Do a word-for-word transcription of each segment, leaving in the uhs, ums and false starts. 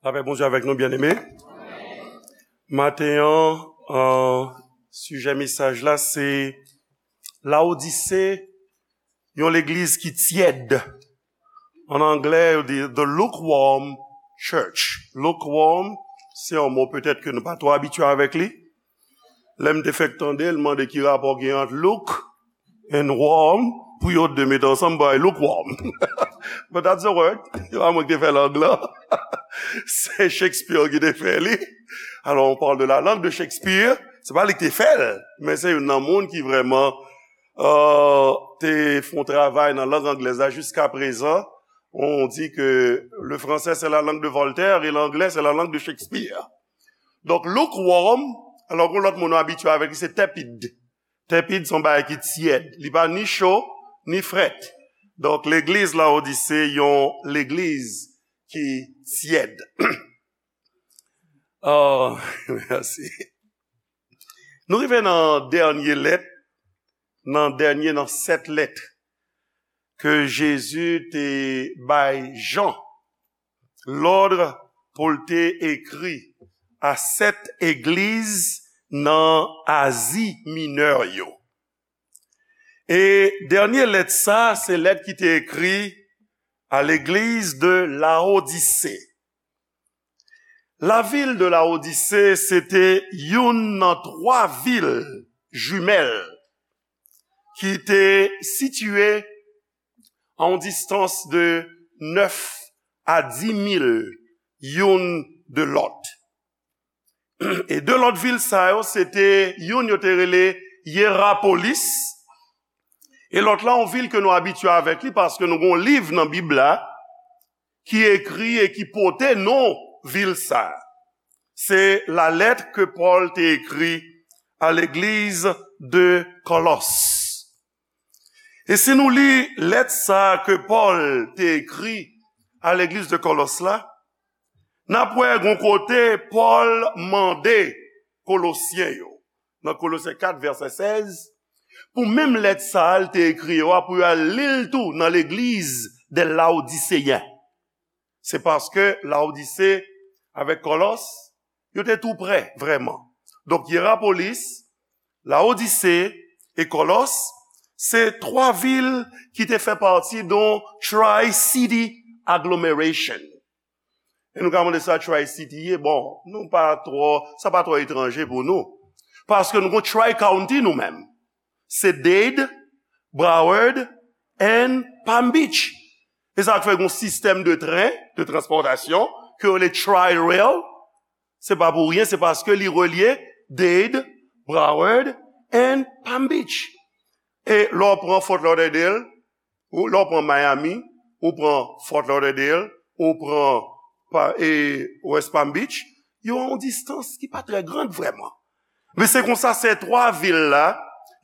Lapè Bondye avèk nou, byeneme. Maten an, euh, sijè mesaj la se Laodise, yon legliz ki tyèd. An anglè, yo di the lukewarm church. Lukewarm, se yon mo petèt ke nou pa twò abitye avèk li. Lè m te fèk tande l, mande ki rapò gen ant look and warm, pou yo de mete ansanm bay lukewarm. But that's the word. Se pa mwen ki te fè lang lan. Se Shakespeare ki te fè li. Alors, on parle de la langue de Shakespeare. Se pa li ki te fè l, men se youn nan moun ki vrèman, euh, te fè yon travay nan lang anglèz la jiska prezan. On dit que le français, c'est la langue de Voltaire et l'anglais, c'est la langue de Shakespeare. Donk, lukewarm, alò, yon lòt mo nou abitye avèk li, se tepid. Tepid se yon bagay ki tyèd. Li pa ni cho, ni frèt. Donk, legliz Laodise, yon legliz ki tyèd. Oh, mèsi. Nou rive nan dènye lèt, nan dènye nan sèt lèt ke Jezi te bay Jan lòd pou l te ekri a sèt egliz nan Azi Minè yo. E dènye lèt sa, se lèt ki te ekri a legliz de Laodise. Lavil de Laodise, se te youn nan twa vil jimèl ki te sitiye a yon distans de nèf a dis mil youn de lòt. E de lòt vil sa yo, se te youn yo te rele Yerapolis, e lòt la, yon vil ke nou abitye avèk li, paske nou gen yon liv nan Bib la ki ekri e ki pote non vil sa. Se lalèt ke Pòl te ekri a legliz de Kòlòs. E si nou li lèt sa ke Pòl te ekri a legliz de Kòlòs la, n ap wè gon kote Pòl mande Kolosyen yo, nan Kolosyen kat vèsè sèz, pou menm lèt sa a l te ekri yo a, pou yo al li l tou nan legliz de Laodiseyen. Se paske Laodise avèk Kòlòs, yo te tou prè, vrèman. Donk, Yerapolis, Laodise e Kòlòs, se twa vil ki te fè pati de yon Tri-City Agglomeration. E nou ka mande sa Tri-City ye, bon, nou pa twò, sa pa twò etranje pou nou. Paske nou gon Tri-County nou menm. Se Dade, Broward and Palm Beach. E sa k fè gon sistèm de tren, de transpòtasyon, ke yo rele Tri-Rail. Se pa pou ryen, se paske li relye Dade, Broward and Palm Beach. E lè w pran Fort Lauderdale, ou, lè w pran Miami, ou pran Fort Lauderdale, ou pran pa, e, West Palm Beach, yo a yon distans ki pa trè grand vrèman. Men se konsa, se twa vil la,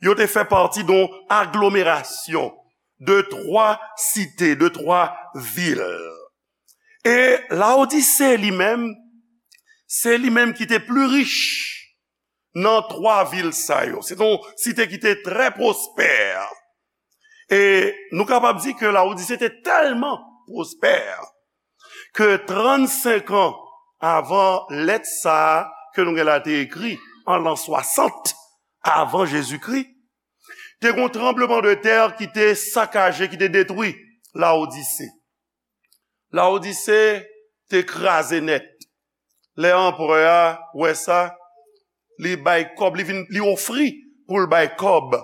yo te fè pati de yon aglomerasyon de twa site, de twa vil. E Laodise li menm, se li menm ki te pli rich nan twa vil sa yo. Se te yon site ki te trè pwospè. E nou kapab di ke Laodise te tèlman pwospè ke trannsenk an avan lèt sa a ke nou gen la te ekri, an lan swasant avan Jezikri, te gen yon tranblemanntè ki te sakaje, ki te detwi Laodise. Laodise te kraze nèt. Lè anperè a wè sa, li bay kòb, li vin, li ofri pou l bay kòb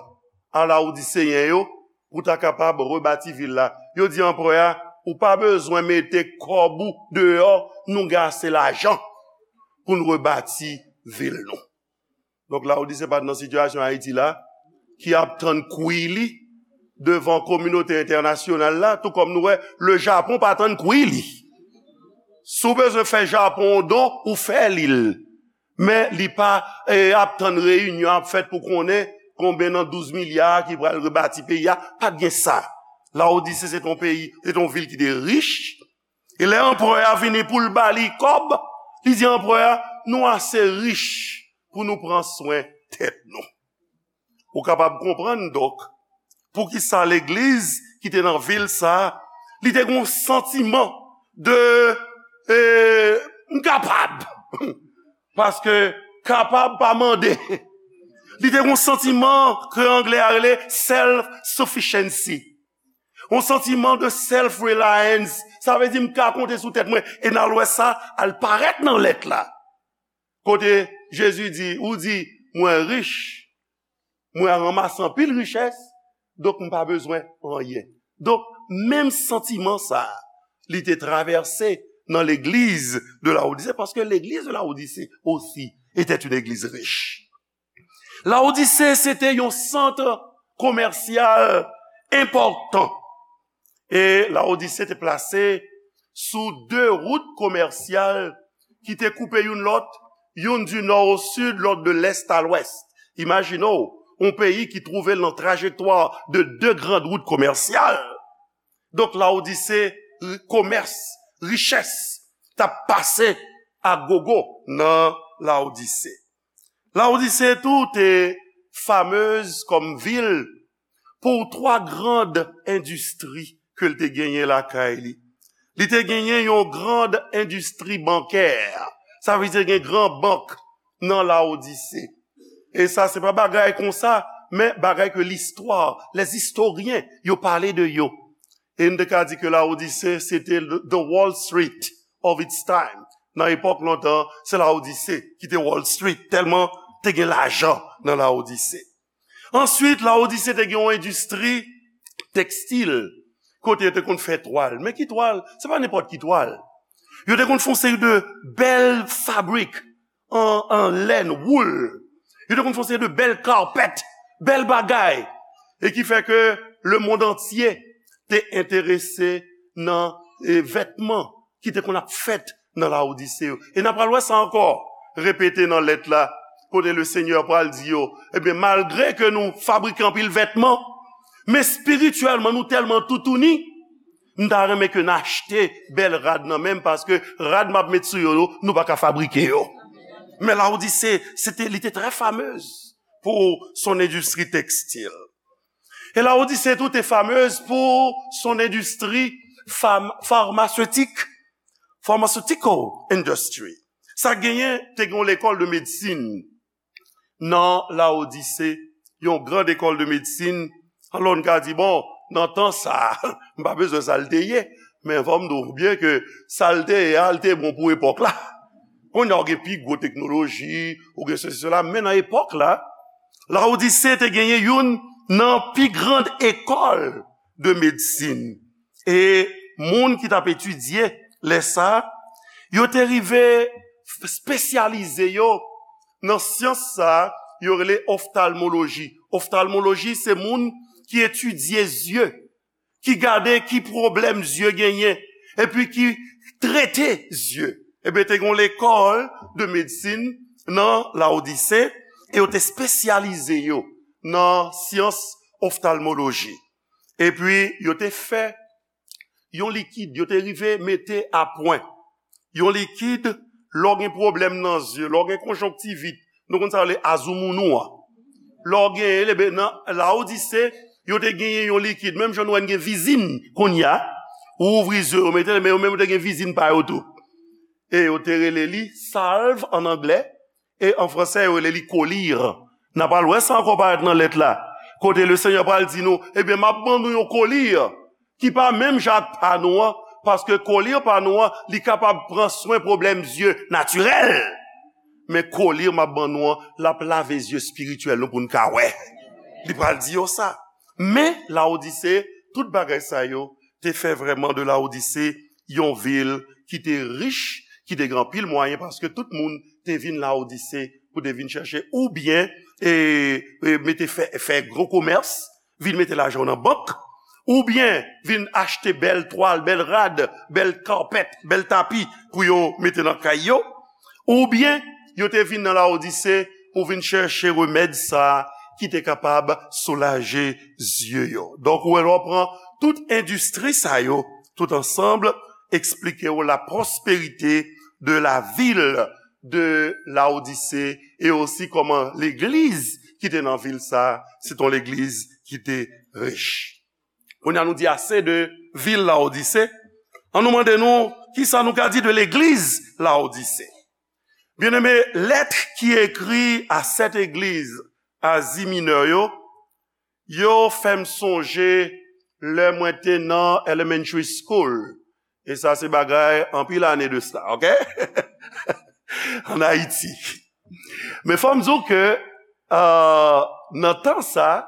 a Laodiseyen yo pou ta kapab rebati vil la. Yo di anperè a, ou pa bezwen mete kòb ou deyò, nou gen ase lajan pou n rebati vil nou. Donk, Laodise pa t nan sitiyasyon Ayiti la, ki ap tann kwi li devan kominote entènasyonal la, tou kòm nou wè, le Japon pa tann kwi li. Si w bezwen fè Japon yon don, ou fè li l. Men li pa, e, ap tann reyinyon ap fèt pou konnen konbyen nan douz milya ki pral rebati peyi a, pa t gen sa. Laodise se t on peyi, se t on vil ki te rich. E lè anperè a vini pou l ba li kòb, li di anperè a, nou ase rich pou nou pran swen tèt nou. Ou kapab konprann, donk, poukisa legliz ki te nan vil sa a, li te gen yon santiman de, e, kapab. Paske kapab pa mande. Li te gen yon santiman ke anglè a rele self-sufficiency. Yon santiman de self-reliance. Sa vle di, "M ka konte sou tèt mwen." E n al wè sa, al parèt nan lèt la. Kote Jezi di, ou di, "Mwen rich, mwen ranmase anpil richès, donk m pa bezwen anyen." Donk, menm santiman sa a, li te travèse nan legliz de Laodise, paske legliz de Laodise osi était une église riche. Laodise, se te yon sant komèsyal enpòtan. E Laodise te plase sou de wout komèsyal ki te koupe youn lòt, youn du nord au sud, lòt de l'est à l'ouest. Imajine w, yon peyi ki twouve l nan trajektwa de de grann wout komèsyal. Donk, Laodise, ri-, komès, richès, t ap pase a gogo nan Laodise. Laodise tou te famez kòm vil pou twa grann endistri ke l te genyen lakay li. Li te genyen yon grann endistri bankè. Sa vle di gen gran bank nan Laodise. E sa se pa bagay konsa, men bagay ke listwa, les historiens, yo pale de yo. E n te ka di ke Laodise, se te the Wall Street of its time. Nan epòk lontan, se Laodise ki te Wall Street, tèlman te gen lajan nan Laodise. Answit, Laodise te gen yon endistri tekstil, kote yo te konn fè twal. Men ki twal? Se pa nenpòt ki twal. Yo te konn fè yon seri de bèl fabrik an, an lèn, wool. Yo te konn fè yon seri de bèl carpet, bèl bagay. E ki fè ke lemonn antye te enterese nan, e, vètman ki te konn ap fèt nan Laodise yo. E n ap pral wè sa ankò repete nan lèt la, kote le Senyè pral di yo, ebyen, malgre ke nou fabrike anpil vètman, men espirityèlman, nou tèlman toutouni, m ta renmen ke n achte bèl rad nan men m, paske rad m ap met sou yo, yo, nou pa ka fabrike yo. Men Laodise, se te, li te trè famez pou son endistri tekstil. E Laodise tou te famez pou son endistri fam-, farmaseutik, pharmaceutical industry. Sa genyen, te gen yon lekòl de medsin nan Laodise, yon gran lekòl de medsin. Alò, n ka di, bon, nan tan sa, m pa bezwen sa l te ye, men fò m di w byen ke sa l te ye a, l te bon pou epòk la. Kounye a, ou gen pi gwo teknoloji, ou gen sesi, sela, men nan epòk la, Laodise te genyen youn nan pi grann ekòl de medsin. E moun ki t ap etidye lè sa a, yo te rive espesyalize yo nan syans sa a, yo rele oftalmoloji. Oftalmoloji, se moun ki etidye zye, ki gade ki pwoblèm zye genyen, epi ki trete zye. Ebyen, te gen yon lekòl de medsin nan Laodise, e yo te espesyalize yo nan syans oftalmoloji. Epi, yo te fè yon likid, yo te rive mete a pwen yon likid, lè w gen pwoblèm nan zye, lè w gen konjonktivit, nou konn sa yo rele azoumounou an. Lè w genyen, ebyen, nan Laodise, yo te genyen yon likid, menm jan nou wè n gen vizin kounye a, ou ouvri zye w, ou mete l, men yo menm yo te gen vizin pa yo tou. E yo te rele li salve an anglè, e an fransè, yo rele li kolir. N ap al wè sa ankò parèt nan lèt la. Kote le Senyè pral di nou, ebyen, m ap ban nou yon kolir ki pa menm jan ak pa nou an, paske kolir pa nou an, li kapab pran swen pwoblèm zye natirèl. Men kolir m ap ban nou an, l ap lave zye espirityèl nou pou n ka wè. Li pral di yo sa. Men, Laodise, tout bagay sa yo te fè vrèman de Laodise yon vil ki te rich, ki te gen anpil mwayen, paske tout moun te vin Laodise pou te vin chèche, oubyen, e, e, mete fè, fè gwo komès, vin mete lajan nan bank, oubyen vin achte bèl twal, bèl rad, bèl carpet, bèl tapi pou yo mete nan kay yo, oubyen yo te vin nan Laodise pou vin chèche remèd sa a ki te kapab soulaje zye yo. Donk, ou wè, lè w pran tout endistri sa yo, tout ansanm, eksplike w la prospérité de la ville de Laodicée, e osi kòman legliz ki te nan vil sa a, se t on legliz ki te rich. Kounye a nou di ase de vil Laodise. An nou mande nou, kisa nou ka di de legliz Laodise? Byeneme, lèt ki ekri a sèt egliz Azi Minè yo, yo fè m sonje lè mwen te nan elementary school. E sa se bagay anpil ane de sa, oke? Ann Ayiti. Men fò m di w ke, euh, nan tan sa,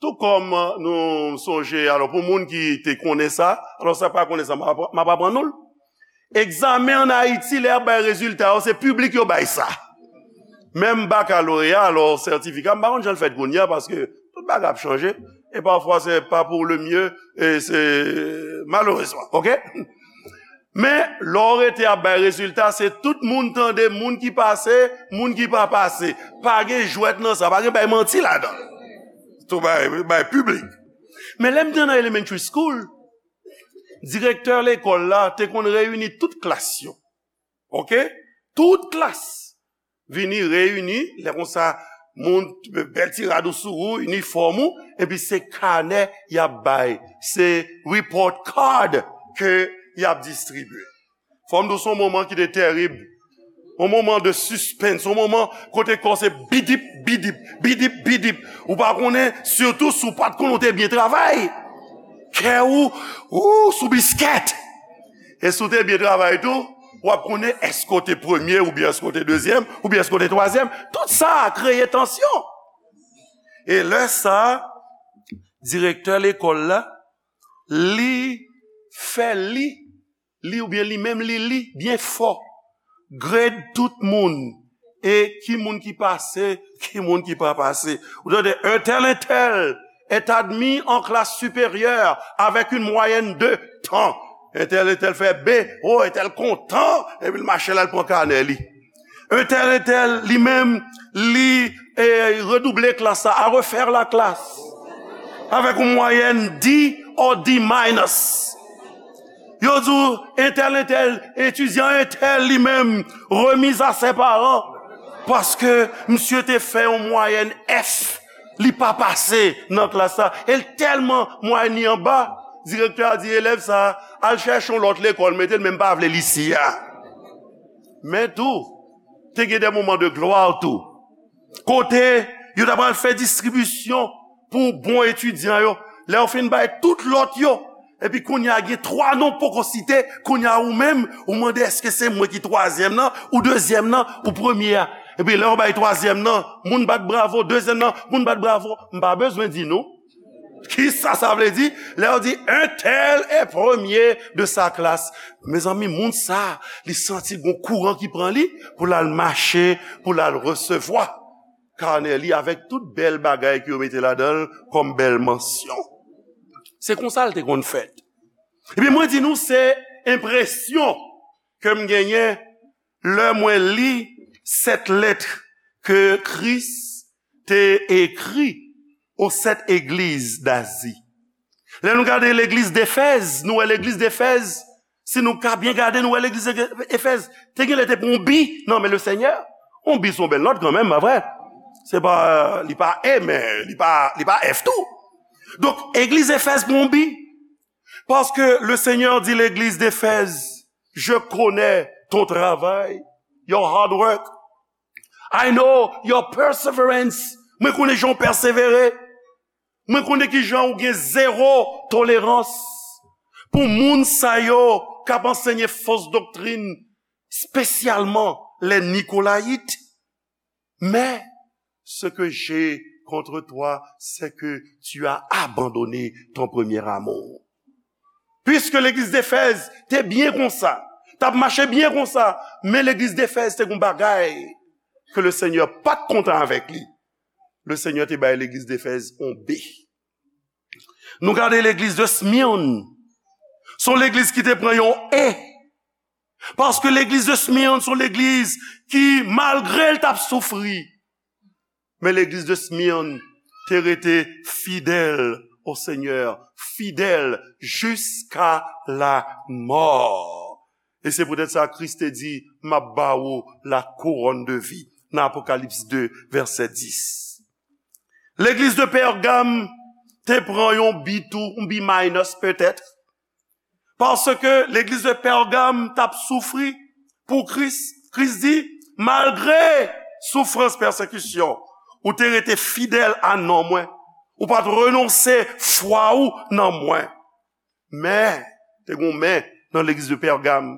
tou kòm nou sonje, alò, pou moun ki te konnen sa, alò, sa pa konnen sa, m ap, m ap aprann nou l. Egzamen ann Ayiti, lè y ap bay rezilta yo, se piblik yo bay sa. Menm bakaloreya, alò, sètifika, m pa konn jan l fèt kounye a, paske tout bagay ap chanje. E pafwa, se pa pou le mye, e se malerezman, oke? Men, lè w rete ap bay rezilta, se tout moun tande, moun ki pase, moun ki pa pase. Pa gen jwèt nan sa, pa gen bay manti ladan. Tou bay, bay piblik. Men lè m te nan elementary school, direktè lekòl la te konn reyini tout klas yo. Oke? Tout klas vini reyini, lè konsa, moun, bèl ti rad ou sou ou, inifòm ou, epi se kanè y ap bay. Se report card ke y ap distribye. Fò m di w, se yon moman ki te tèrib. Yon moman de suspense, yon moman kote kò w se bidip, bidip, bidip, bidip. Ou pa konnen, sitou si w pa t konnen w te byen travay. Kè ou, ou sou biskèt. E si w te byen travay tou, w ap konnen èske w te premye, oubyen èske w te dezyèm, oubyen èske w te twazyèm. Tout sa a kreye tansyon. E lè sa a, direktè lekòl la, li fè li, li oubyen li menm li li byen fò. Grade tout moun. E ki moun ki pase, ki moun ki pa pase. Ou tande, un tel, un tel est admis en classe supérieure avec une moyenne de tant. Un tel, un tel fè B, oh, un tel kontan, epi l mache la, l pran kanè li. Un tel, un tel, li menm, li, eh, redouble klas la, a refaire la classe. Avec une moyenne D or D minus. Yo di w, un tel, un tel, etidyan un tel li menm, remise à ses parents. Paske misye te fè yon mwayèn F, li pa pase nan klas la. E l tèlman mwayèn li anba, direktè a di elèv sa a, al chèche yon lòt lekòl, mete l, men m pa vle l isi a. Men tou, te gen de moman de glwa tou. Kote yo ta pral fè distribisyon pou bon etidyan yo. Lè yo fin bay tout lòt yo, epi kounye a gen twa non poko site, kounye a ou menm, ou mande èske se mwen ki twazyèm nan, ou dezyèm nan, ou premye a. Epi lè yo bay twazyèm nan, moun bat bravo, dezyèm nan, moun bat bravo. M pa bezwen di nou. Kisa sa vle di? Lè yo di, un tel est premier de sa classe. Mezanmi, moun sa, li santi gon kouran ki pran li pou l al mache, pou l al resevwa kanè li avèk tout bèl bagay ke yo mete ladan l kòm bèl mansyon. Se konsa l te konn fèt. Epi mwen di nou, se enpresyon ke m genyen lè mwen li sèt lèt ke Kris te ekri aux sept églises d'Asie. Lè nou gade legliz Defèz, nou wè legliz Defèz, si nou ka byen gade, nou wè legliz Efèz te gen lè te pran yon bi nan men le Senyè. Yon bi se yon bèl nòt kanmenm, pa vre? Se pa, li pa E, men li pa, li pa F tou. Donk, legliz Efèz pran yon bi. Parce que le Seigneur dit l'église d'Éphèse, je connais ton travail, your hard work. I know your perseverance. Mwen konnen jan w pèsevere. Mwen konnen ki jan w gen zewo tolerans pou moun sa yo k ap ansenye fos doktrin, espesyalman les Nicolaïtes. Mais ce que j'ai contre toi, c'est que tu as abandonné ton premier amour. Puisque legliz Defèz te byen konsa, t ap mache byen konsa, men legliz Defèz te gon bagay ke le Senyè pa t kontan avèk li. Le Senyè te bay legliz Defèz yon B. Nou gade legliz de Smyrne. Se yon legliz ki te pran yon E. Paske legliz de Smyrne se yon legliz ki, malgre l t ap soufri, men legliz de Smyrne te rete fidèl au Seigneur, fidèl jusqu'à la mort. E se poutèt sa Kris te di, m ap ba ou la couronne de vie, nan Apokalips de, vèsè dis. Legliz de Pègam te pran yon bi tou, yon bi minus petèt. Paske legliz de Pègam t ap soufri pou Kris. Kris di, Malgre soufrans, pèsekisyon, ou te rete fidèl a non mwen. Ou pa t renonse fwa ou nan mwen. Men, te gen yon men nan legliz de Pègam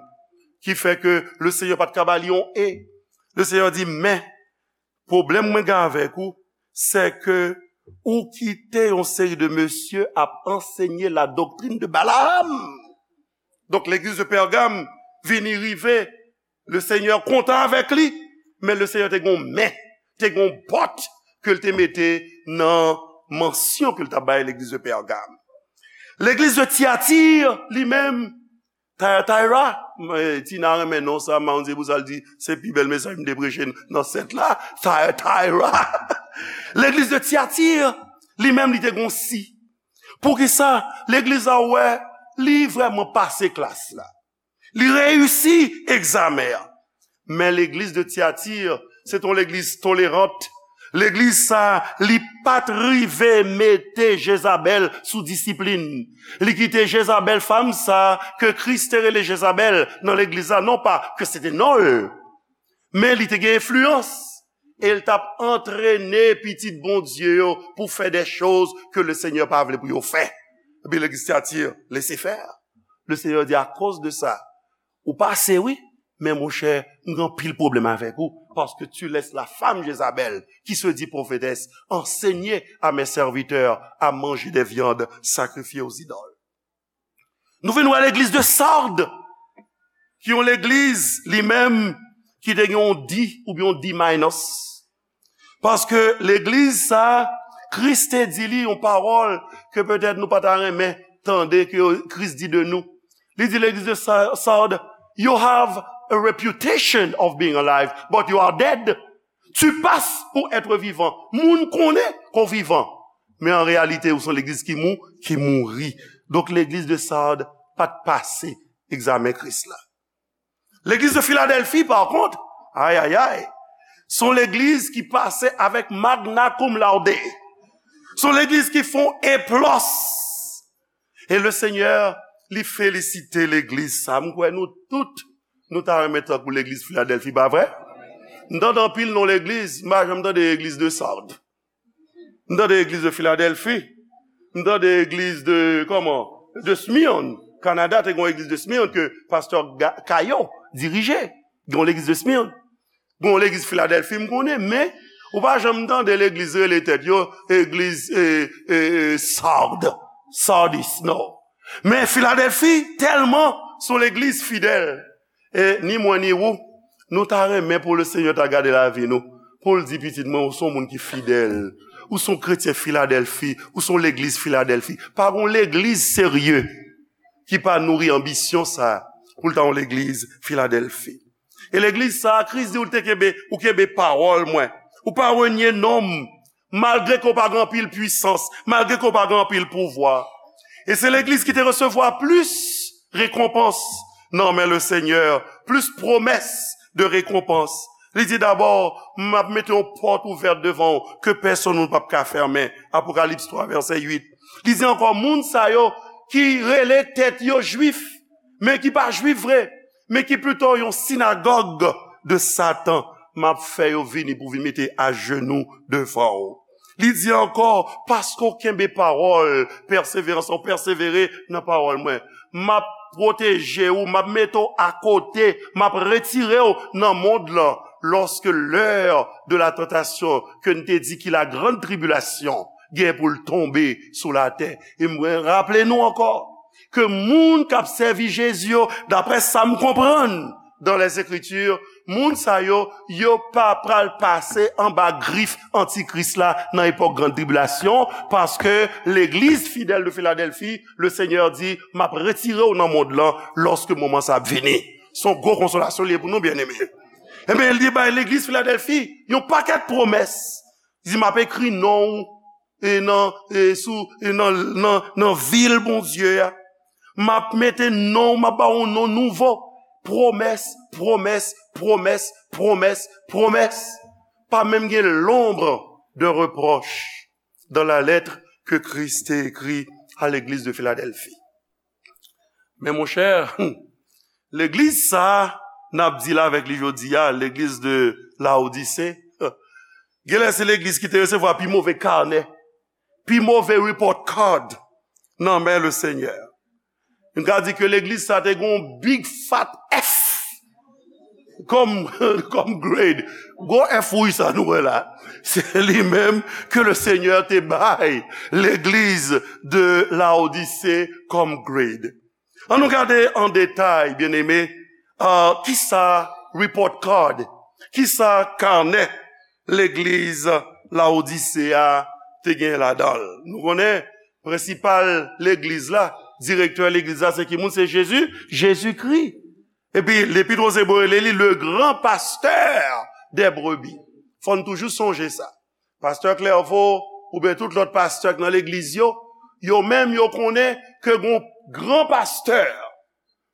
ki fè ke Lesenyè pa t ka ba li yon e. Lesenyè di, men, pwoblèm mwen gen avèk ou, se ke ou kite yon seri de mesye ap ansenye la doktrin de Balaam. Donk, legliz de Pègam vini rive, Lesenyè kontan avèk li, men Lesenyè te gen yon men, te gen yon bòt ke l te mete nan mansyon ke l t ap bay legliz de Pègam. Legliz de Tiyati, li menm, Thyatira, Tina renmen non sa, m pa konn se pou sa l di, se pi bèl mesaj m te preche nan sèt la, Thyatira. Legliz de Tiyati, li menm, li te gen yon si. Poukisa? Legliz la wè, li vrèman pase klas la. Li reyisi egzamen an. Men legliz de Tiyati, se t on legliz tolerant. Legliz sa, li pa t rive mete Jezabèl sou disiplin. Li kite Jezabèl, fanm sa, ke Kris te rele Jezabèl nan legliz la, non pa ke se te non l, men li te gen enfliyans. E l t ap antrene pitit Bondye yo pou fè de choz ke Lesenyè pa vle pou yo fè. Epi legliz Tiyati, lese fè. Lesenyè di, akoz de sa, ou pase, wi, men monchè, m gen anpil pwoblèm avèk ou, parce que tu laisses la femme Jézabel, qui se dit prophétesse, enseigner à mes serviteurs à manger des viandes sacrifiées aux idoles. Nou vin wè legliz de Sard, ki yon legliz, li menm, ki te gen yon D oubyen yon D minus. Paske legliz sa, Kris te di li yon pawòl ke petèt nou pa ta renmen tande ke Kris di de nou. Li di legliz de Sa-, Sard, "You have a reputation of being alive, but you are dead." Tu passes pour être vivant. Moun konnen ke w vivan. Men an reyalite, ou se yon legliz ki mou, ki mouri. Donk, legliz de Sard pa t pase egzamen Kris la. Legliz de Filadèlfi, pa kont, ay, ay, ay, se yon legliz ki pase avèk magna cum laude. Se yon legliz ki fè yon eplòs. E Lesenyè, li felisite legliz sa. M kwè nou tout, nou ta renmen tankou legliz Filadèlfi, pa vre? M tande anpil non legliz, m pa janm tande legliz de Sard. M tande legliz de Filadèlfi. M tande legliz de, kòman? De Smyrne. Kanada te gen yon legliz de Smyrne ke pastè Ga-, Caillot dirije. Gen yon legliz de Smyrne. Gen yon legliz Filadèlfi, m konnen, men ou pa janm tande legliz rele tèt yo legliz, e, e, e, Sard, Sardis, non. Men Filadèlfi, tèlman se yon legliz fidèl. E ni mwen ni ou, nou ta renmen pou Lesenyè ta gade lavi nou, pou l di, "Pitit mwen, ou se yon moun ki fidèl. Ou se yon kretyen Filadèlfi, ou se yon legliz Filadèlfi." Pa gen yon legliz serye ki pa nouri anbisyon sa, pou l ta yon legliz Filadèlfi. E legliz sa, Kris di ou te kenbe, ou kenbe pawòl mwen. Ou pa renye non m, malgre ke w pa gen anpil pwisans, malgre ke w pa gen anpil pouvwa. E se legliz ki te resevwa plis rekonpans nan men Lesenyè, plis pwomès de rekonpans. Li di dabò, "M ap mete yon pòt ouvèt devan w ke pèsonn moun p ap ka fèmen." Apokalips twa, vèsè uit. Li di ankò, "Moun sa yo ki rele tèt yo Jwif, men ki pa Jwif vre, men ki pito yon sinagòg de Satan, m ap fè yo vini pou vin mete ajenou devan w." Li di ankò, "Paske w kenbe pawòl pèseverans, w pèsevere nan pawòl mwen, m ap pwoteje w, m ap mete w akote, m ap retire w nan mond lan, lorsque l'heure de la tentation, ke n te di ki la grande tribulation, gen pou l tonbe sou latè." E mwen raple nou ankò ke moun k ap sèvi Jezi yo, daprè sa m konprann dans les Écritures, moun sa yo, yo pa pral pase anba grif antikris la nan epòk gran tribilasyon, paske legliz fidèl de Filadèlfi, Lesenyè di, "M ap retire w nan mond lan lòske moman sa ap vini." Se yon gwo konsolasyon li ye pou nou, byeneme. Ebyen, li bay legliz Filadèlfi yon pakèt pwomès. Li di, "M ap ekri non w e nan, e sou, e nan, nan, nan vil Bondye a. M ap mete non w, m ap ba w yon non nouvo." Pwomès, pwomès, pwomès, pwomès, pwomès. Pa menm gen l'ombre d'un reproche dans la lettre que Christ écrit à l'église de Philadelphie. Men monchè, legliz sa a, n ap deal avèk li jodi a, legliz de Laodise. Genlè se legliz ki te resevwa pi move kanè, pi move report card nan men Lesenyè. Nou ka di ke legliz sa te gen yon big fat F kòm, kòm grade. Gwo F wouj sa nou wè la. Se li menm ke Lesenyè te bay legliz de Laodise kòm grade. An nou gade an detay, byeneme, ah, kisa report card, kisa kanè legliz Laodise a te gen ladan l. Nou konnen, prensipal legliz la, direktè legliz la, se ki moun? Se Jezi, Jezikri. Epi, Lepit Woz Ebre rele li le grand pasteur des brebis. Fò n toujou sonje sa. Pastè Clairvaux, oubyen tout lòt pastè k nan legliz yo, yo menm yo konnen ke gon gran pastè,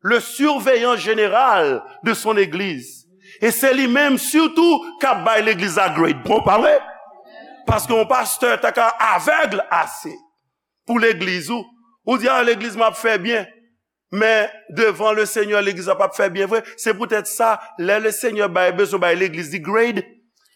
le surveillant général de son église. E se li menm sitou k ap bay legliz la grade. Bon, pa vre? Paske yon pastè ta ka avèg ase pou legliz ou. Ou di, "A, legliz m ap fè byen." Men devan Lesenyè, legliz la p ap fè byen vre. Se poutèt sa, lè Lesenyè bay, bezwen bay legliz li grade,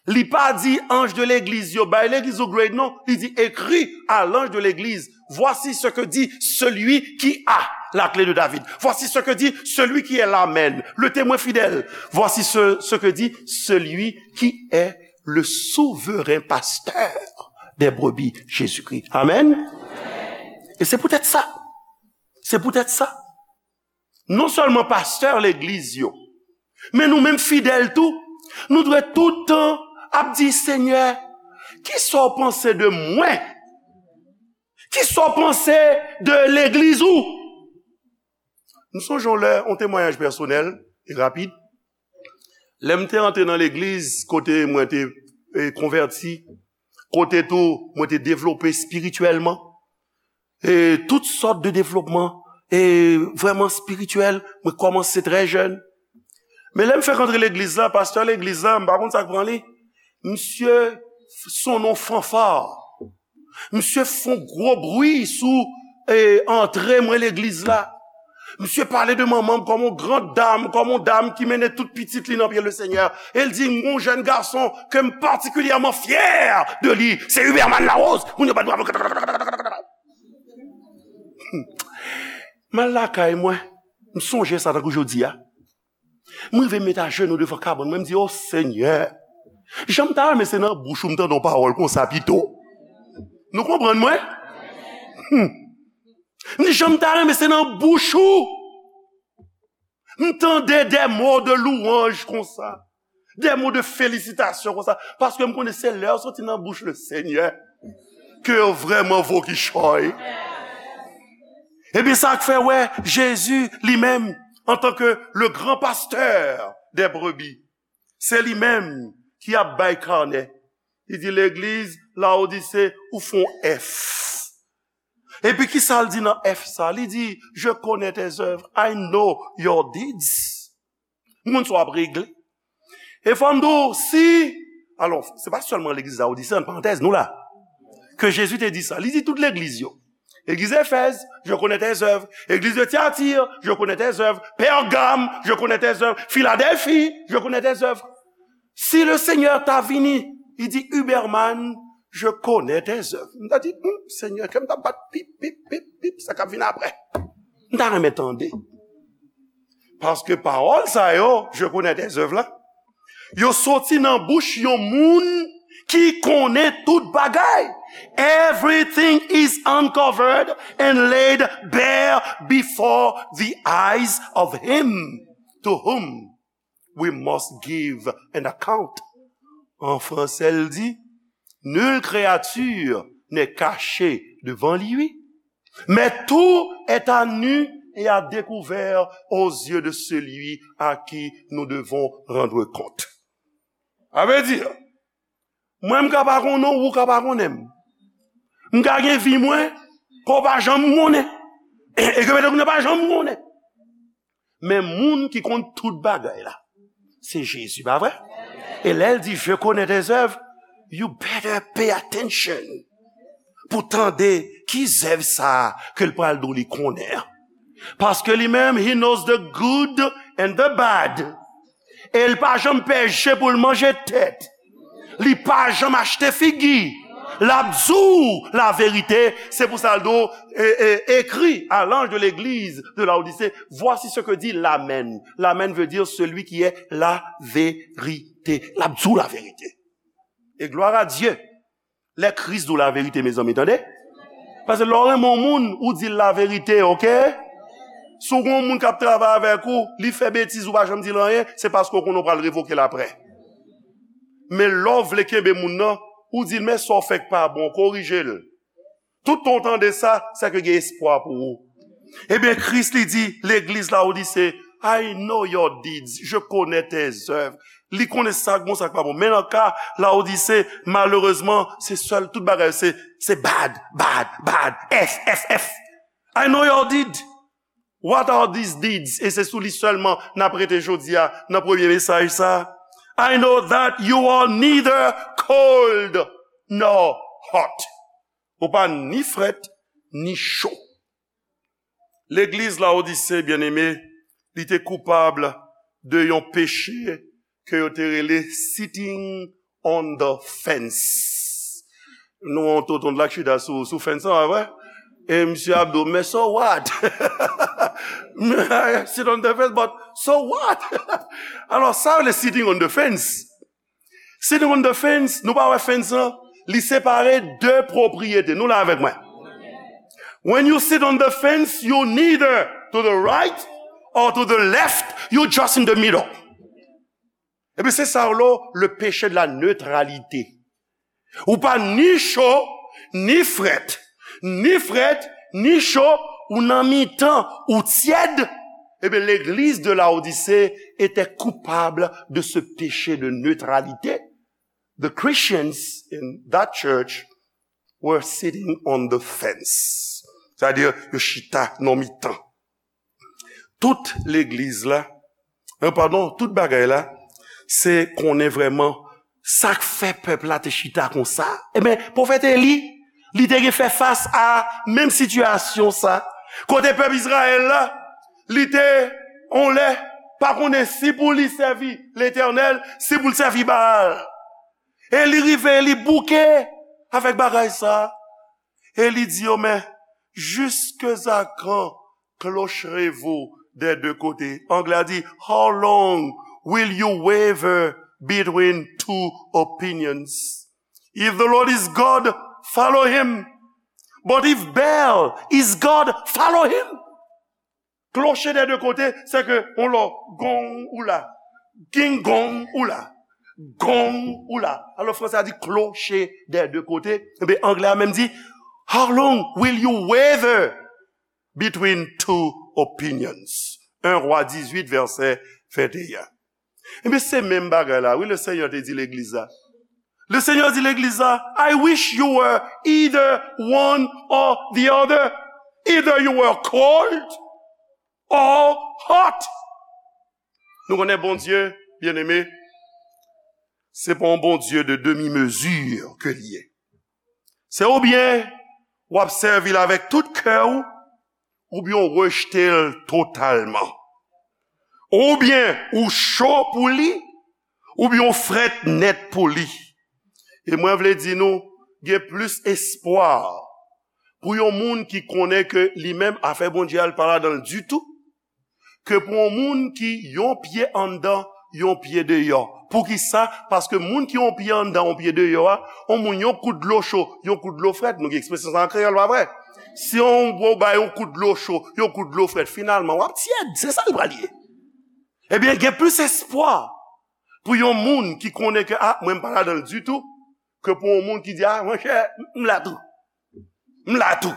li pa di anj de legliz yo, "Bay legliz ou grade," non. Li di, "Écris à l'ange de l'église, voici ce que dit celui qui a la clé de David. Voici ce que dit celui qui est l'Amen, le témoin fidèle. Voici ce, ce que dit celui qui est le souverain pasteur des brebis, Jésus-Christ." Amen. E se poutèt sa, se poutèt sa, non sèlman pastè legliz yo, men nou menm fidèl tou, nou dwe tout tan ap di, "Senyè, kisa w panse de mwen? Kisa w panse de legliz ou?" M sonje yon lè, yon temwayaj pèsonèl e rapid. Lè m te antre nan legliz, kote mwen te, e, konvèti, kote tou mwen te devlope espirityèlman, e tout sòt de devlopman, e vrèman espirityèl, mwen kòmanse trè jèn. Men lè m fèk antre legliz la, pastè legliz la, m pa konn sa k pran li. Misye se yon fanfa. Misye fè yon gwo bri sou, e, antre mwen legliz la. Misye pale de manman m kòm yon gran dam, kòm yon dam ki mennen tout pitit li nan pye Lesenyè. E l di, "Yon jèn gason ke m patikilyèman fyè de li, se Huberman Larose." Moun yo bat bravo. M al lakay mwen, m sonje sa tankou jodi a. Mwen rive met ajenou devan kabann mwen, m di, "O Senyè, jan m ta renmen se nan bouch ou m tande yon pawòl konsa pito." Nou konprann mwen? Hmm. M di, "Jan m ta renmen se nan bouch ou m tande des mots de louange konsa, des mots de félicitation konsa." Paske m konnen se lè yo soti nan bouch Lesenyè ke yo vrèman vo kichòy. Ebyen, sa k fè wè Jezi li menm, antanke le grand pasteur des brebis, se li menm ki ap bay kanè. Li di, "Legliz Laodise, ou fè yon F." Epi ki sa l di nan F sa? Li di, "Je connais tes œuvres, I know your deeds." M konn sa w ap regle. E fò m di w, si, alò, se pa sèlman legliz Laodise, an parantèz, nou la, ke Jezi te di sa. Li di tout legliz yo. Legliz Efèz, "Je connais tes œuvres." Legliz de Tyatir, "Je connais tes œuvres." Pègam, "Je connais tes œuvres." Filadèlfi, "Je connais tes œuvres." Si Lesenyè ta vini, li di, "Huberman, je connais tes œuvres." M ta di, "Hmm, Senyè, kè m t ap bat pip, pip, pip, pip, sa k ap vin apre." M ta renmen tande. Paske pawòl sa yo, "Je connais tes œuvres" la, yo soti nan bouch yon moun ki konnen tout bagay. "Everything is uncovered and laid bare before the eyes of him to whom we must give an account." An fransè, l di, "Nulle créature n'est cachée devant lui, mais tout est à nu et à découvert aux yeux de celui à qui nous devons rendre compte." Sa vle di, mwen m ka pa konnen w, ou ka pa konnen m. M ka gen vi mwen, ke w pa janm konnen. E, e ke petèt ou pa janm konnen. Men moun ki konn tout bagay la, se Jezi, pa vre? E lè l di, "Je connais tes œuvres," you better pay attention pou tande ki zèv sa a ke l pral di w li konnen an. Paske li menm, he knows the good and the bad. E l pa janm pèche pou l manje tèt. Li pa janm achte figi. L ap di w laverite. Se pou sa l di w, e, e, écris à l'ange de l'église de Laodicée, voici ce que dit l'Amen. L'Amen veut dire celui qui est la vérité. L ap di w laverite. E gloire à Dieu. Lè Kris di w laverite, mezanmi, tande. Paske lè w renmen yon moun, ou di l laverite, oke? Si w gen yon moun k ap travay avèk ou, li fè betiz, ou pa janm di l anyen, se paske w konnen w pral revoke l aprè. Men lè w vle kenbe moun nan, ou di l, men sa w fè k pa bon, korije l. Toutan w tande sa, sèke gen espwa pou ou. Ebyen, Kris li di legliz Lawodise, I know your deeds, je connais tes œuvres. Li konnen sa k bon, sa k pa bon. Men nan ka Lawodise, malerezman, se sèl, tout bagay se, se bad, bad, bad, F, F, F. I know your deed. What are these deeds? E se sou li sèlman n ap rete jodi a nan premye mesaj sa. I know that you are neither cold nor hot. Ou pa ni frèt, ni cho. Legliz Lawodise, byeneme, li te koupab de yon peche ke yo te rele sitting on the fence. Nou wè yon tonton la ki chita sou, sou fence lan, pa vre? E misye ap di w, men so what? Sit on the fence, but so what? Alò, sa yo rele sitting on the fence. Sitting on the fence, nou pa wè fence lan? Li separe de pwopriyete. Nou la avèk mwen? When you sit on the fence, you neither to the right or to the left, you just in the middle. Epi se sa yo rele le péché de la neutralité. Ou pa ni cho, ni frèt, ni frèt, ni cho, ou nan mitan, ou tyèd. Ebyen, l'église de Laodicée était coupable de ce péché de neutralité. The Christians in that church were sitting on the fence. Sa vle di, yo chita nan mitan. Tout legliz la, euh, padon, tout bagay la, se konnen vrèman sa k fè pèp la te chita konsa. Ebyen, pwofèt Eli, li te gen fè fas a menm sitiyasyon sa. Kote pèp Izrayèl la, li te, on lè, pa konnen si pou li sèvi Letènèl, si pou l sèvi Baal. E li rive, li bouke avèk bagay sa. E li di yo, men, jusqu'à quand clocherez-vous des deux côtés? Anglè a di, how long will you waver between two opinions? If the Lord is God, follow him. But if Baal is God, follow him. Clocher des deux côtés, se ke on lò, gong ou la, ging gong ou la, gong ou la. Alò, fransè a di clocher des deux côtés. Ebyen, anglè a menm di, how long will you waver between two opinions? Un Roi dix-huit, verset vingt et un. Ebyen, se menm bagay la, wi, le Senyè te di legliz la. Le Senyè di legliz la, I wish you were either one or the other. Either you were cold or hot. Nou konnen Bondye, byeneme, se pa yon Bondye de demi-mesure ke li ye. Se oubyen w ap sèvi l avèk tout kè w, oubyen w rejte l totalman. Oubyen ou cho pou li, oubyen w frèt nèt pou li. E mwen vle di nou, gen plis espwa pou yon moun ki konnen ke li menm afè Bondye a, l pa ladan l ditou, ke pou yon moun ki yon pye anndan, yon pye deyò. Poukisa? Paske moun ki yon pye anndan, yon pye deyò a, yon moun yon kout dlo cho, yon kout dlo frèt, nou gen ekspresyon sa an kreyòl, pa vre? Si yon gwo bay yon kout dlo cho, yon kout dlo frèt, finalman, w ap tyèd, se sa l pral ye. Ebyen, gen plis espwa pou yon moun ki konnen ke, a, mwen m pa ladan l ditou, ke pou yon moun ki di, a, monchè, m la tou. M la tou.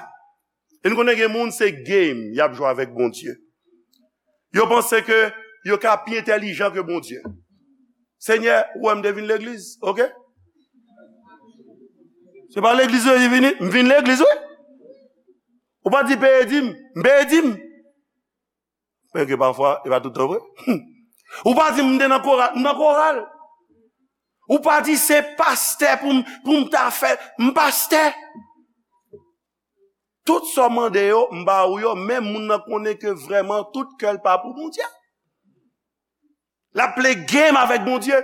E n konnen gen moun, se game y ap jwe avèk Bondye. Yo panse ke yo ka pi entèlijan ke Bondye. Senyè, ou wè m te vin legliz, oke? Se pa legliz ou vini, m vin legliz, wi. Ou pa di peye dim, m peye dim. Menm ke pafwa, e pa tout tan vre. Ou pa di m te nan koral, m nan koral. Ou pa di se pastè pou m, pou m ta fè, m pastè. Tout sa w mande yo, m ba ou yo, men moun nan konnen ke vrèman tout kè l pa pou Bondye. L ap play game avèk Bondye.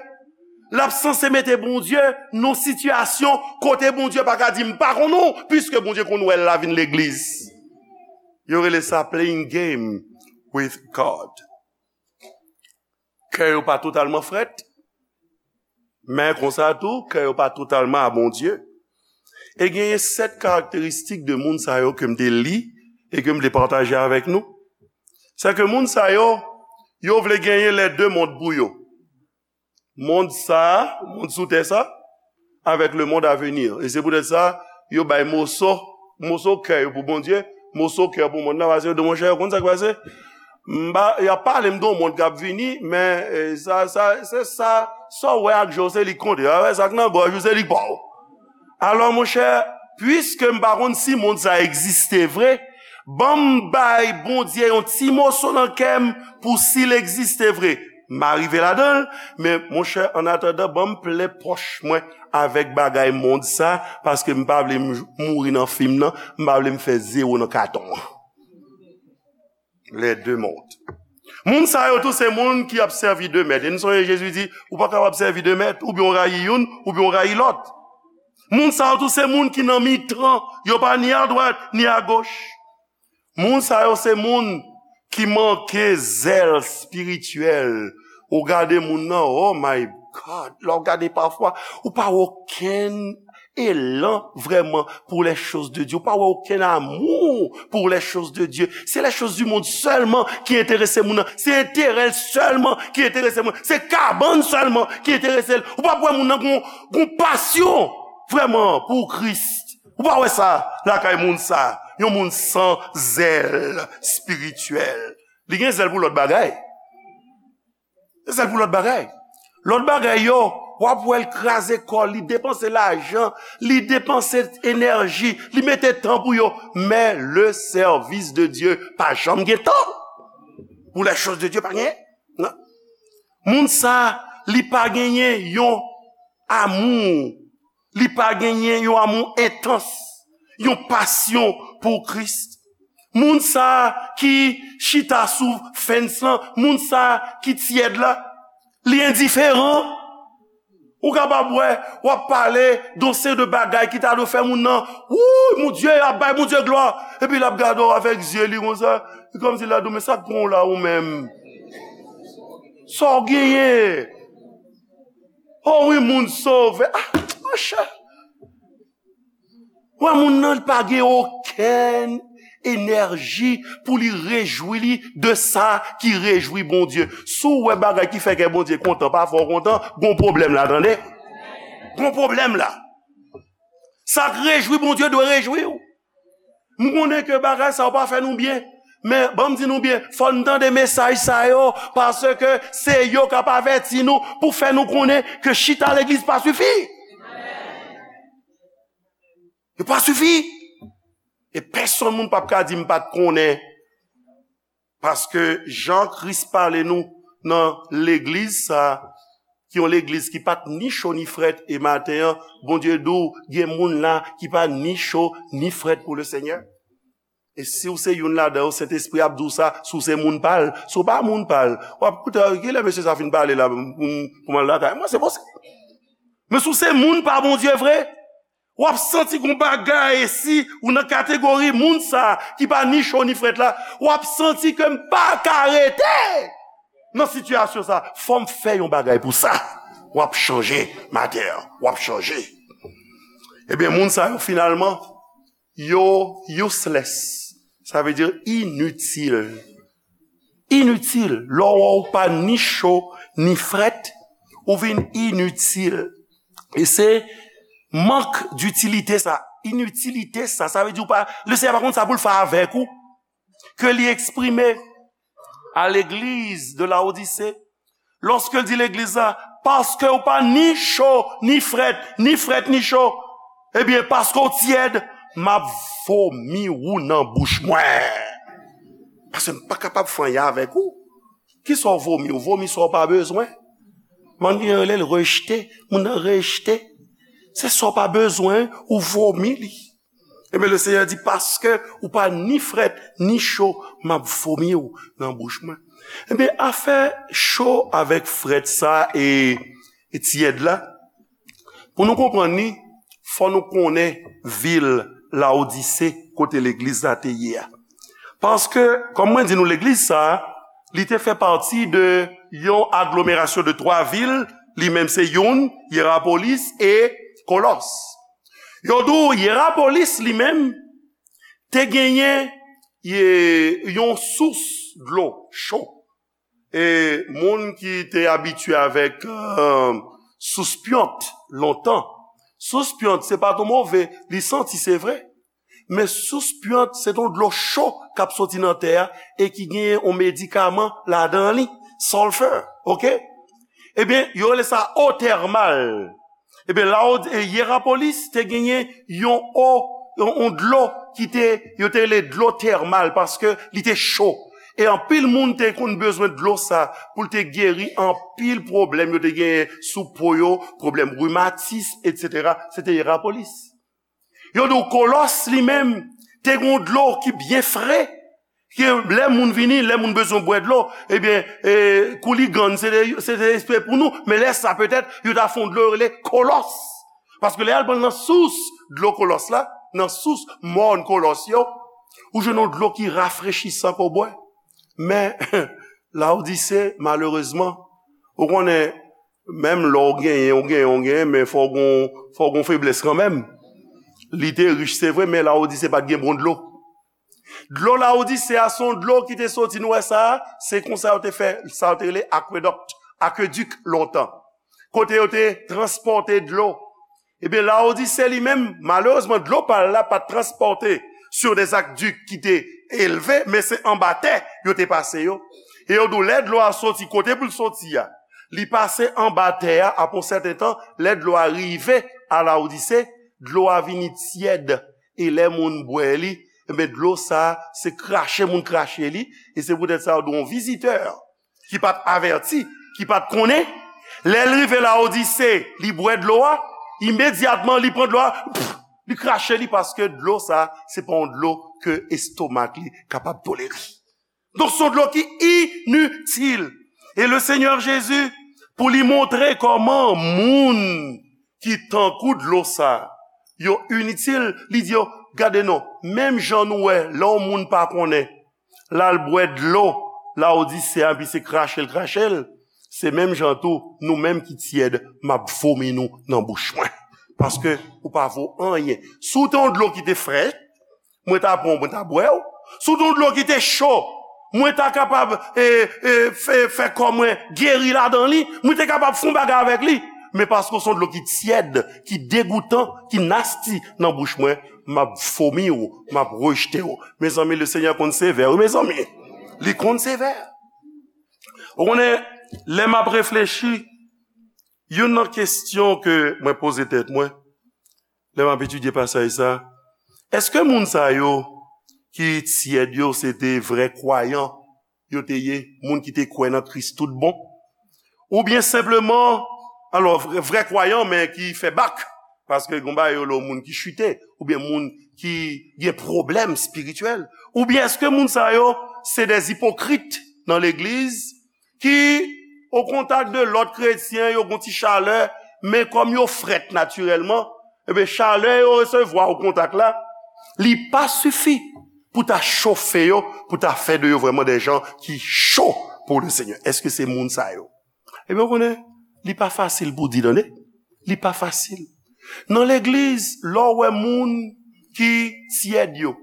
L ap sanse mete Bondye nan sitiyasyon kote Bondye pa ka di, "M pa konn ou," piske Bondye konn wè l la vin legliz. Yo rele sa playing game with God. Kè yo pa totalman frèt, men konsa tou, kè yo pa totalman a Bondye. E genyen sèt karakteristik de moun sa yo ke m te li e ke m te pataje avèk nou. Se ke moun sa yo, yo vle genyen les deux mondes pou yo. Mond sa a, mond sou tè sa, avèk le monde à venir. E se poutèt sa, yo bay moso, moso kè yo pou Bondye, moso kè yo pou mond nan, paske yo di, "Monchè, ou konn sa k pase? M pa, y ap pale m de yon mond k ap vini, men, eh, sa, sa, se sa, sa w wè ak je w, se li k konte. A, sa k nan gòj ou, se li k pa w." Alò, monchè, piske m pa konn si mond sa egziste vre, ban m bay Bondye yon ti moso nan kè m pou si l egziste vre. M a rive ladan l, men monchè, annatandan, ban m plen pòch mwen avèk bagay mond sa, paske m pa vle m mouri nan fim nan, m pa vle m fè zewo nan katon an. Les deux mondes. Moun sa yo tou se moun ki ap sèvi de mèt. E nou sonje Jezi di, ou pa kapab sèvi de mèt, oubyen w rayi youn, oubyen w rayi lòt. Moun sa yo tou se moun ki nan mitan, yo pa ni adwat, ni agoch. Moun sa yo se moun ki manke zèl espirityèl. Ou gade moun nan, oh my God, lè w gade pafwa, ou pa wè okenn elan vrèman pour les choses de Dieu. Ou pa wè okenn amou pour les choses de Dieu. Se les choses du monde sèlman ki enterese moun nan. Se enterè l sèlman ki enterese moun nan. Se kabann sèlman ki enterese l. Ou pa wè moun nan gon, gon pasyon vrèman pou Kris. Ou pa wè sa lakay moun sa. Yon moun san zèl espirityèl. Li gen zèl pou lòt bagay. Se sèl pou lòt bagay. Lòt bagay yo, w ap wè l kraze kò l, li depanse lajan, li depanse enèji, li mete tan pou yo. Men le service de Dieu pa janm gen tan. Pour les choses de Dieu, pa gen. Non. Moun sa, li pa genyen yon amou, li pa genyen yon amou entans, yon pasyon pou Kris. Moun sa ki chita sou fence lan, moun sa ki tyèd la, li endiferan. Ou kapab wè, w ap pale de yon seri de bagay ki ta dwe fè moun nan, wouy, mon Dieu, ap bay Bondye glwa. Epi l ap gade w avèk zye li konsa, e kòmsi l ap di w, men sa k pran w la ou menm? Sa w genyen? Oh wi, moun sove. Ah, monchè. Wè, moun nan, li pa gen okenn enèji pou li rejwi li de sa ki rejwi Bondye. Si w wè bagay ki fè kè Bondye kontan pa fè w kontan, gon pwoblèm la, tande. Gon pwoblèm la. Sa k rejwi Bondye dwe rejwi w. M konnen ke bagay sa yo pa fè nou byen, men ban m di nou byen, fò n tande mesaj sa yo, paske se yo k ap avèti nou pou fè nou konnen ke chita legliz pa sifi. Yo pa sifi. E pèsonn moun p ap ka di m pa t konnen. Paske jan Kris pale nou nan legliz sa, ki yon legliz ki pa t ni cho ni frèt, e maten an, Bondye di w, gen moun la ki pa ni cho ni frèt pou le Senyè. E si w se youn ladan yo, Sentespri ap di w sa, si w se moun pa l, si w pa moun pa l, w ap koute, kilè mesye sa fin pale la, pou m, pou m al lakay mwen, se posib. Men si w se moun pa Bondye vre, w ap santi gon bagay, e si ou nan kategori moun sa ki pa ni cho ni frèt la, w ap santi ke m pa ka rete nan sitiyasyon sa. Fò m fè yon bagay pou sa. W ap chanje, maten an, w ap chanje. Ebyen, moun sa yo, finalman, yo useless. Sa vle di initil. Initil. Lè w wè w pa ni cho, ni frèt, ou vin initil. E se mank ditilite sa. Initilite sa. Sa vle di w pa, le Senyè pa konn sa pou l fè avèk ou. Ke li eksprime a legliz de Laodise, lòske l di legliz la, paske w pa ni cho, ni frèt, ni frèt, ni cho, ebyen, paske w tyèd, m ap vomi ou nan bouch mwen. Paske m pa kapab fè anyen avèk ou. Kisa w vomi? W vomi sa w pa bezwen. Mann gen rele l rejte. Moun nan rejte. Se sa w pa bezwen, ou vomi li. Ebyen, le Senyè di, paske ou pa ni frèt, ni cho, m ap vomi w nan bouch mwen. Ebyen, afè cho avèk frèt sa e, e tyèd la, pou nou konprann li, fò nou konnen vil Lawodise, kote legliz la te ye a. Paske, kòm mwen di nou, legliz sa a, li te fè pati de yon aglomerasyon de twa vil, li menm se youn, Yerapolis e Kolòs. Yo di w Yerapolis li menm te genyen, e, yon sous dlo cho. E moun ki te abitye avèk, e, sous pyont lontan. Sous pyont, se pa twò move, li santi, se vre. Men sous pyont, se yon dlo cho k ap soti nan tè a e ki genyen yon medikaman ladan li, sulfur, oke? Ebyen, yo rele sa eau thermale. Ebyen, Lawod-, e, Yerapolis te genyen yon eau, yon, yon dlo ki te, yo te rele dlo tèmal paske li te cho. E anpil moun te konn bezwen dlo sa pou l te geri anpil pwoblèm yo te genyen sou po yo, pwoblèm rimatis, etsetera. Se te Yerapolis. Yo di w Kolòs li menm te gen yon dlo ki byen fre, ke lè moun vini, lè moun bezwen bwè dlo, ebyen, e, kouligann, se te, se te espre pou nou, men lè sa petèt, yo ta fè yon dlo yo rele Kolòs. Paske lè y al pran nan sous dlo Kolòs la, nan sous mòn Kolòs yo, ou jwenn yon dlo ki rafrechisan ke w bwè. Men, Lawodise, malerezman, ou konnen, menm lè w genyen, w genyen, w genyen, men fò w gon, fò w gon feblès kanmenm. Li te rich, se vre, men Lawodise pa t gen bon dlo. Dlo Lawodise a, se yon dlo ki te soti, nou wè sa a, se konsa yo te fè, sa yo te rele akwedòk, akedik lontan. Kote yo te transpòte dlo. Ebyen, Lawodise li menm, malerezman, dlo pa l la pa t transpòte sur des aqueducs ki te elve, men se anba tè yo te pase yo. E yo di w, lè dlo a soti kote pou l soti a, li pase anba tè a, apre yon sèten tan, lè dlo a rive a Lawodise, dlo a vini tyèd. E lè moun bwè li, ebyen, dlo sa a, se krache moun krache li, e se poutèt sa yo di w yon vizitè ki pa t avèti, ki pa t konnen, lè l rive Lawodise, li bwè dlo a, imedyatman li pran dlo a, pff, li krache li paske dlo sa a, se pa yon dlo ke estomak li kapab tolere. Donk, se yon dlo ki initil. E le Senyè Jezi, pou li montre kòman moun ki tankou dlo sa, yo initil, li di yo, gade non, menm jan nou wè, lè yon moun pa konnen, l al bwè dlo Lawodise a, epi se krache l krache l, se menm jan tou, nou menm ki tyèd, m ap vomi nou nan bouch mwen. Paske ou pa vo anyen. Si w te yon dlo ki te frèt, mwen ta pran w, mwen ta bwè w. Si w te yon dlo ki te cho, mwen ta kapab, e, e, fè, fè kò mwen geri ladan li, mwen te kapab fè yon bagay avèk li. Men paske w se yon dlo ki tyèd, ki degoutan, ki nasty nan bouch mwen, m ap vomi w, m ap rejte w. Mezanmi, le Senyè konn sevè, wi, mezanmi. Li konn sevè. Ou konnen, lè m ap reflechi, youn nan kesyon ke mwen poze tèt mwen, lè m ap etidye pasaj sa, èske moun sa yo ki tyèd yo, se te vrè kwayan yo te ye, moun ki te kwè nan Kris tout bon? Oubyen senpleman, alò, vrè, vrè kwayan, men ki fè bak, paske gon bagay yo rele moun ki chite, oubyen moun ki gen pwoblèm espirityèl? Oubyen èske moun sa yo se de ipokrit nan legliz ki o kontak de lòt kretyen, yo gon ti chalè, men kòm yo frèt natirèlman, ebyen, chalè yo resevwa o kontak la, li pa sifi pou ta chofe yo, pou ta fè de yo vrèman de jan ki cho pou le Senyè. Èske se moun sa yo? Ebyen, ou konnen, li pa fasil pou di, tande. Li pa fasil. Nan legliz, lè w wè moun ki tyèd yo,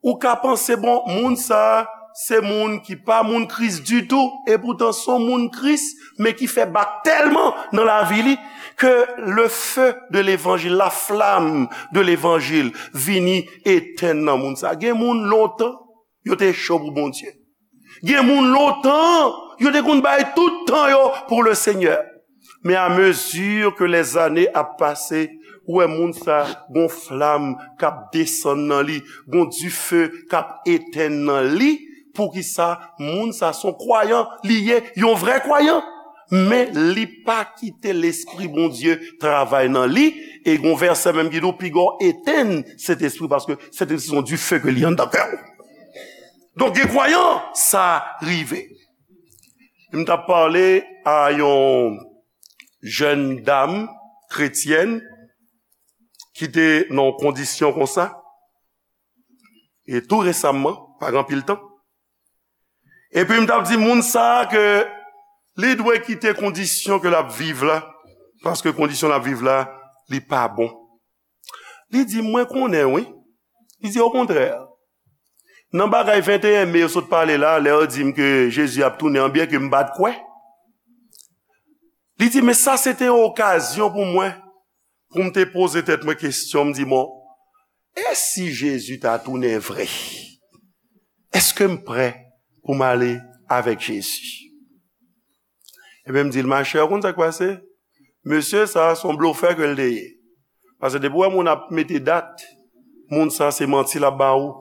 ou ka panse, bon, moun sa a, se moun ki pa moun Kris ditou, epoutan se yon moun Kris, men ki fè bak tèlman nan lavi li, ke le feu de l'évangile, la flamme de l'évangile, vini etenn nan moun sa a. Gen moun lontan, yo te cho pou Bondye. Gen moun lontan, yo te konn bay tout tan yo pou le Senyè. Men a mezi ke lèzane ap pase, ou wè moun sa gon flam k ap desann nan li, gon dife k ap etenn nan li. Poukisa? Moun sa se yon kwayan, li ye yon vrè kwayan. Men li pa kite Lespri Bondye travay nan li. E gon vèsè menm ki di w, piga w etenn Sentespri, paske Sentespri se yon dife ke li anndan kè w. Donk, gen kwayan, sa rive. M t ap pale a yon jèn dam kretyèn ki te nan yon kondisyon konsa, e tou resaman, pa gen anpil tan. Epi m t ap di moun sa a ke li dwe kite kondisyon ke l ap viv la, paske kondisyon l ap viv la, li pa bon. Li di, "Mwen konnen, wi." Li di, "Okontrè, nan bagay venteyen me yo sot pale la, lè yo di m ke Jezi ap tounen an, byen ke m pa t kwè." Li di, "Men sa se te yon okazyon pou mwen, pou m te poze tèt mwen kesyon, m di, 'Bon, e si Jezi ta tounen vre? Èske m prè pou m ale avèk Jezi?'" Ebyen, m di l, "Machè, ou konn sa k pase? Mesye sa a, se yon blofè ke l te ye. Paske depi w wè moun ap mete dat, moun sa a, se manti l ap ba ou."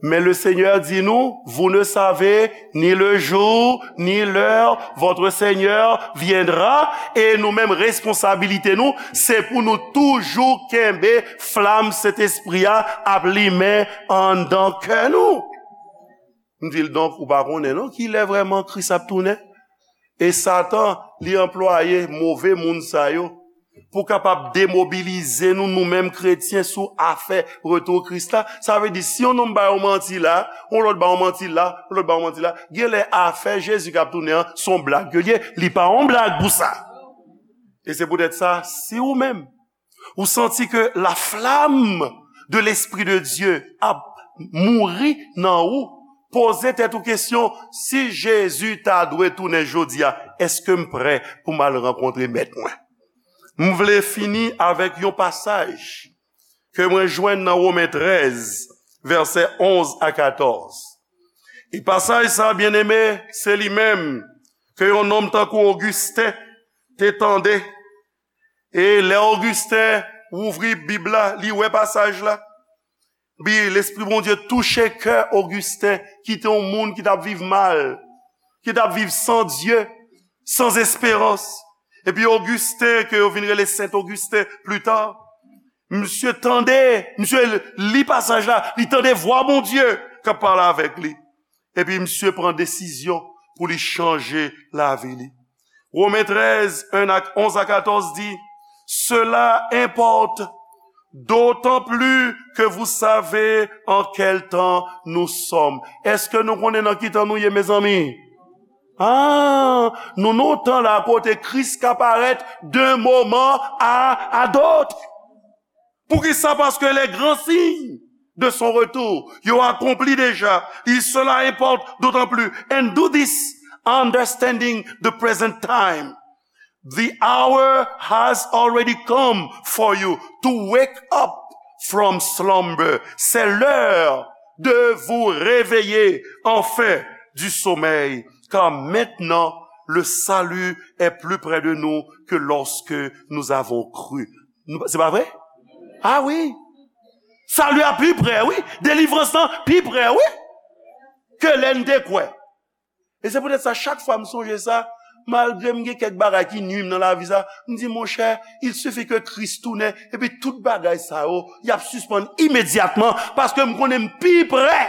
Men le Seigneur di nou, "Vous ne savez ni le jour, ni l'heure, votre Seigneur viendra." E nou menm, responsabilite nou, se pou nou toujou kenbe flam Sentespri a ap limen anndan kè nou. M di l, "Donk, ou pa konnen non, kilè vrèman Kris ap tounen?" E Satan, li anplwaye move moun sa yo pou kapab demobilize nou, nou menm kretyen, sou afè retou Kris la. Sa vle di, si yon nonm ba yon manti la, yon lòt ba yon manti la, yon lòt ba yon manti la, genlè afè Jezi k ap tounen an, se yon blag ke l ye. Li pa yon blag pou sa. E se poutèt sa, si ou menm, ou santi ke la flamme de l'Esprit de Dieu ap mouri nan ou, poze tèt ou kesyon, "Si Jezi ta dwe tounen jodi a, èske m prè pou m al rankontre Mèt mwen?" M vle fini avèk yon pasaj ke mwen jwenn nan Women trèz, vèsè onz a katòz. E pasaj sa, byeneme, se li menm ke yon nonm tankou Ogisten te tande. E lè Ogisten ouvri Bib la, li wè pasaj la. Bi, Lespri Bondye touche kè Ogisten, ki te yon moun ki t ap viv mal, ki t ap viv san Dye, san esperans. Epi Ogisten, ke yo vin rele Sent Ogisten pli ta, misye tande, misye li pasaj la, li tande vwa Bondye k ap pale avèk li. Epi misye pran desizyon pou li chanje lavi li. Women trèz, en a, onz a katòz di, "Cela importe d'autant plus que vous savez en quel temps nous sommes." Èske nou konnen nan ki tan nou ye, mezanmi? Ah, nou nan yon tan la kote Kris ka parèt d'un moment à, à d'autres. Poukisa? Parce que les grands signes de son retour, yo akonpli deja. Il cela importe d'autant plus. And do this understanding the present time. The hour has already come for you to wake up from slumber. C'est l'heure de vous réveiller enfin du sommeil, car maintenant le salut est plus près de nous que lorsque nous avons cru. Nou, se pa vre? Ah wi. Sali a pi prè, wi. Delivrans lan pi prè, wi. Ke lè n te kwè. E se poutèt sa, chak fwa m sonje sa, malgre m gen kèk bagay ki nui m nan lavi sa, m di, monchè, il suffit que Christ tounen, epi tout bagay sa yo, y ap sispann imedyatman, paske m konnen m pi prè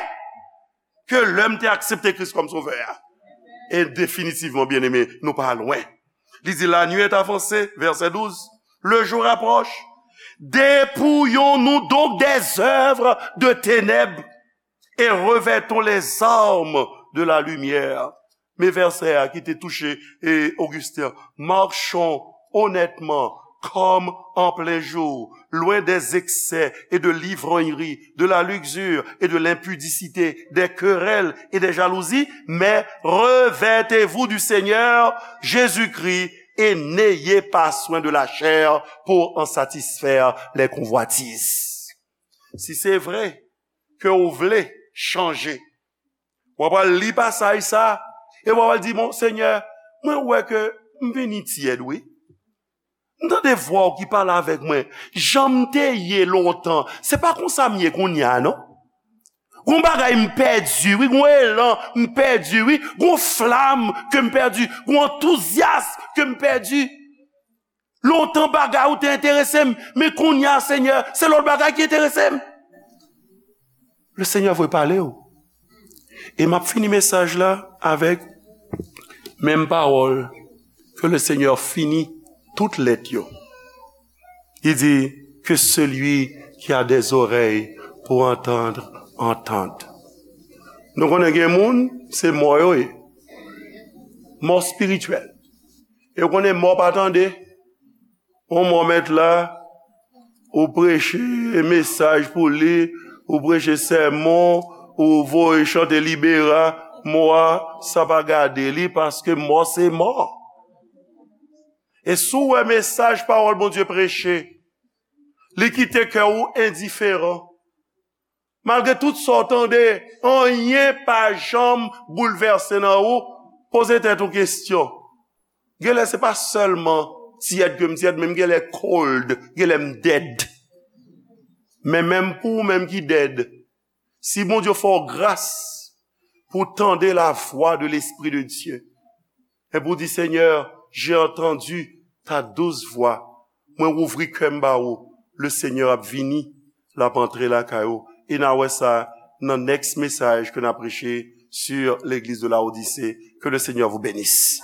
ke lè m te aksepte Kris kòm Sovè a. E definitivman, byeneme, nou pa lwen. Li di, la nuit est avancée, verset douze, le jour approche. Dépouillons-nous donc des œuvres de ténèbres et revêtons les armes de la lumière. Men vèsè a ki te touche, e, Ogisten. Marchons honnêtement, comme en plein jour, loin des excès et de l'ivrognerie, de la luxure et de l'impudicité, des querelles et des jalousies, mais revêtez-vous du Seigneur Jésus-Christ et n'ayez pas soin de la chair pour en satisfaire les convoitises. Si se vre ke w vle chanje, w ap al li pasaj sa, e w ap al di, "Bon, Senyè, mwen wè ke m vini tyèd, wi. M tande vwa w ki pale avèk mwen. Jan m te ye lontan, se pa konsa m ye kounye a, non. Gon bagay m pèdi, wi, gon elan m pèdi, wi, gon flam ke m pèdi, gon antouzyas ke m pèdi." Lontan bagay ou te enterese m, men kounye a, Senyè, se lòt bagay ki enterese m. Le Seigneur vle pale w. E m ap fini mesaj la avèk menm pawòl ke le Senyè fini tout lèt yo. Li di, que celui qui a des oreilles pour entendre, entende. Nou konnen gen moun, se mò yo ye. Mò espirityèl. E w konnen mò pa tande. Yon mò mèt la, ou preche mesaj pou li, ou preche sèmon, ou voye chante libera, mò a, sa pa gade li, paske mò se mò. E si w wè mesaj pawòl Bondye preche, li kite kè w endiferan. Malgre tout sa w tande, anyen pa janm boulvèse nan ou, poze tèt ou kesyon. Genlè se pa sèlman tyèd ke m tyèd, men m genlè cold, genlè m dead. Men menm pou ou menm ki dead, si Bondye fè w gras pou w tande la voix de l'Esprit de Dieu, e pou w di, Seigneur, j'ai entendu ta douce voix, mwen ouvri kè m ba ou, le Seigneur ap vini, l ap antre lakay ou. E n a wè sa nan next mesaj ke n a preche sur l'église de Laodicée. Que le Seigneur vous bénisse.